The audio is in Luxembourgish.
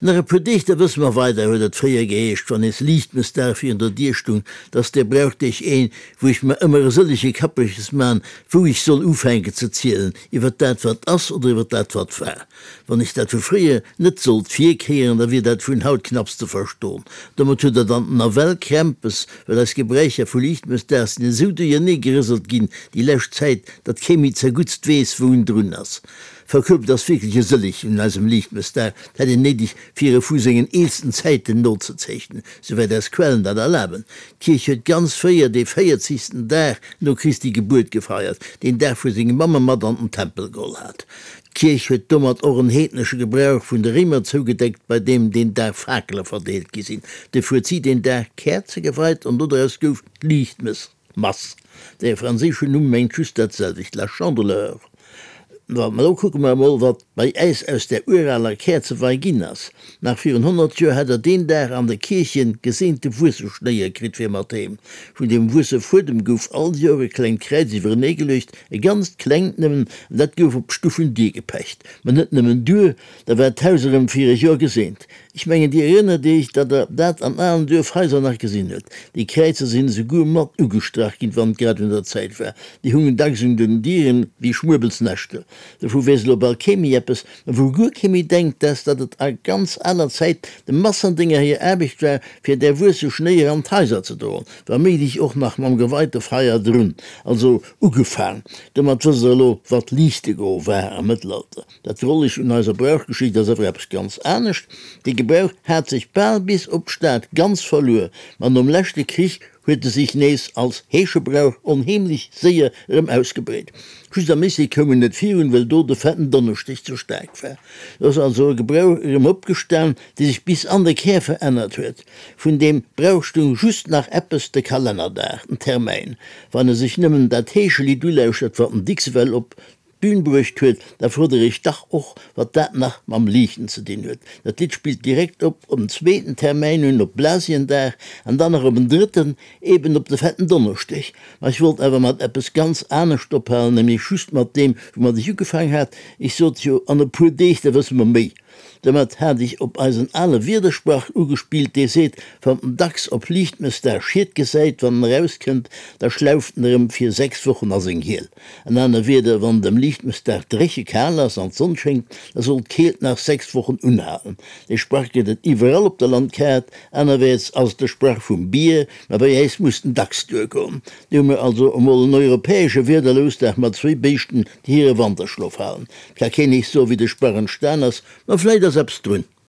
Nach e puer Deeg, da wësse mer weider, huet et fréier geheescht, wann nees Liichtmëssdag virun der Dier stung, 't ass dee Brauchdeeg een, wou ech mer ëmmer e sëllege Kappeches man, wou ech soll ufänken ze zielen, iwwer dat wat ass oder iwwer dat wat war. Wann ech dat vu fréier net sollt virkéieren, da wier dat vun haut knapps ze verston. Domat huet der dann nawell Krämpes, well eis Gebräicher vu Liichtmëssdag sinn esou duerjernee gerëselt ginn déi lescht Zäit, datt kee méi zerguttst weess, wou en drun ass. Verkuebt ass wierklech e sëlleg un eisem Liichtmëssdag, 't hätt een néideg fir e vu sengen eelsten Zäiten nozezeechnen, souwäit eis Quellen dat erlaben. D'Kierch huet ganz fréier dee véierzegsten Dag no Christi Gebuert gefeiert, deen Dag wou seng Mamm e mat an den Tempel geholl hat. D'Kierch huet domat och en heednesche Gebrauch vun de Réimer zougedeckt, bei deem deen Dag Fakele verdeelt gi sinn. Duerfir huet si deen Dag Käerze geweit an dodraus gouf d'Liichtmëss. Mass. Dee franséischen Numm mengt just dat selwecht, la Chandeleur. Wa ma lo kucke mer emol, wat bei äis aus där uraler Käerzewei ginn ass. Nach virun 100 Joer hat der deen Dag an de Kierchen geseente Wuesseschnéier kritt fir mat heem. Vun deem Wuessefuedem gouf all Joer e klengt Kräiz iwwerenee geluecht, e ganzt klengt nëmmen, an dat gouf op d'Stuffendier gepecht. Ma net nëmmen duer, da war d'Haus erëm fir e Joer geseent. Ech mengen, Dir erënnert Iech, datt Der dat an alen Duerfhaiser nach gesinn huet. Déi Kräizer sinn esouguer mat ugestrach ginn, wann et grad un der Zäit war. Déi hungen dacks un den Dieren wéi Schmuebelsnäschter. Dovu weess elo bal kee méi eppes, ma wou guer kee méi denkt, dat ass, datt et a ganz aler Zäit de Massendénger hir Aarbecht war, fir där wuesse Schnéier an d'Haiser ze droen, wa méiglech och nach mam geweite Feier drun. Also ugefaang. Domat wësst Der elo, wat Liichtegoe war am Mëttelalter. Dat Drolleg un eiser Brauchgeschicht ass awer eppes ganz anescht, Dee Gebrauch hat sech bal bis op d'Stad ganz verluer, ma nom leschte Krich huet e sech nees als Heeschebrauch onheemlech séier erëm ausgebreet. Just am Lycée koum en net virun, well do de Fetten Donneschdeg ze staark war. Do ass also e Gebrauch erëm opgestan, dee sech bis an de Kär verännert huet. Vun deem Brauch stung just nach eppes, de Kalennerdag, den Termäin. Wann e sech nëmmen dat Heeschelidd ulauschtert, wat den Dixwell op D'Bühn bruecht huet, da frot der iech dach och, wat dat nach mam Liichten ze dinn huet. Dat Lidd spillt direkt op en zweeten Termäin un, op Blasiendag, an dann nach op en drëtten, eben op de Fetten Donneschdeg. Ma ech wollt awer mat eppes ganz anescht ophalen, nämlech just mat deem, woumat ech ugefaang hat. Ech sot jo, an e puer Deeg, da wësse mer méi. Domat hat ech op eisen ale Wiedersprach ugespillt, dee seet, Wann den Dachs op Liichtmëssdag Schied gesäit, wann en erauskënnt, da schlauft en erëm fir 6 Wochen a seng Hiel. An aner Wieder, wann et ëm Liichtmëssdag dréche kal ass an d'Sonn schéngt, da soll d'Keelt nach 6 Wochen unhalen. Dee Sprach gëtt et iwwerall op der Landkaart. Anerwäerts ass et de Sprach vum Bier, ma bei äis muss den Dachs duergoen. Do hu mir also emol en europäesche Wiederlousdag mat zwéi Béischten, déi hire Wanterschlof halen. 't ka keen eech soen, wéi de Sprach entstan ass, ma vläit ass eppes drun.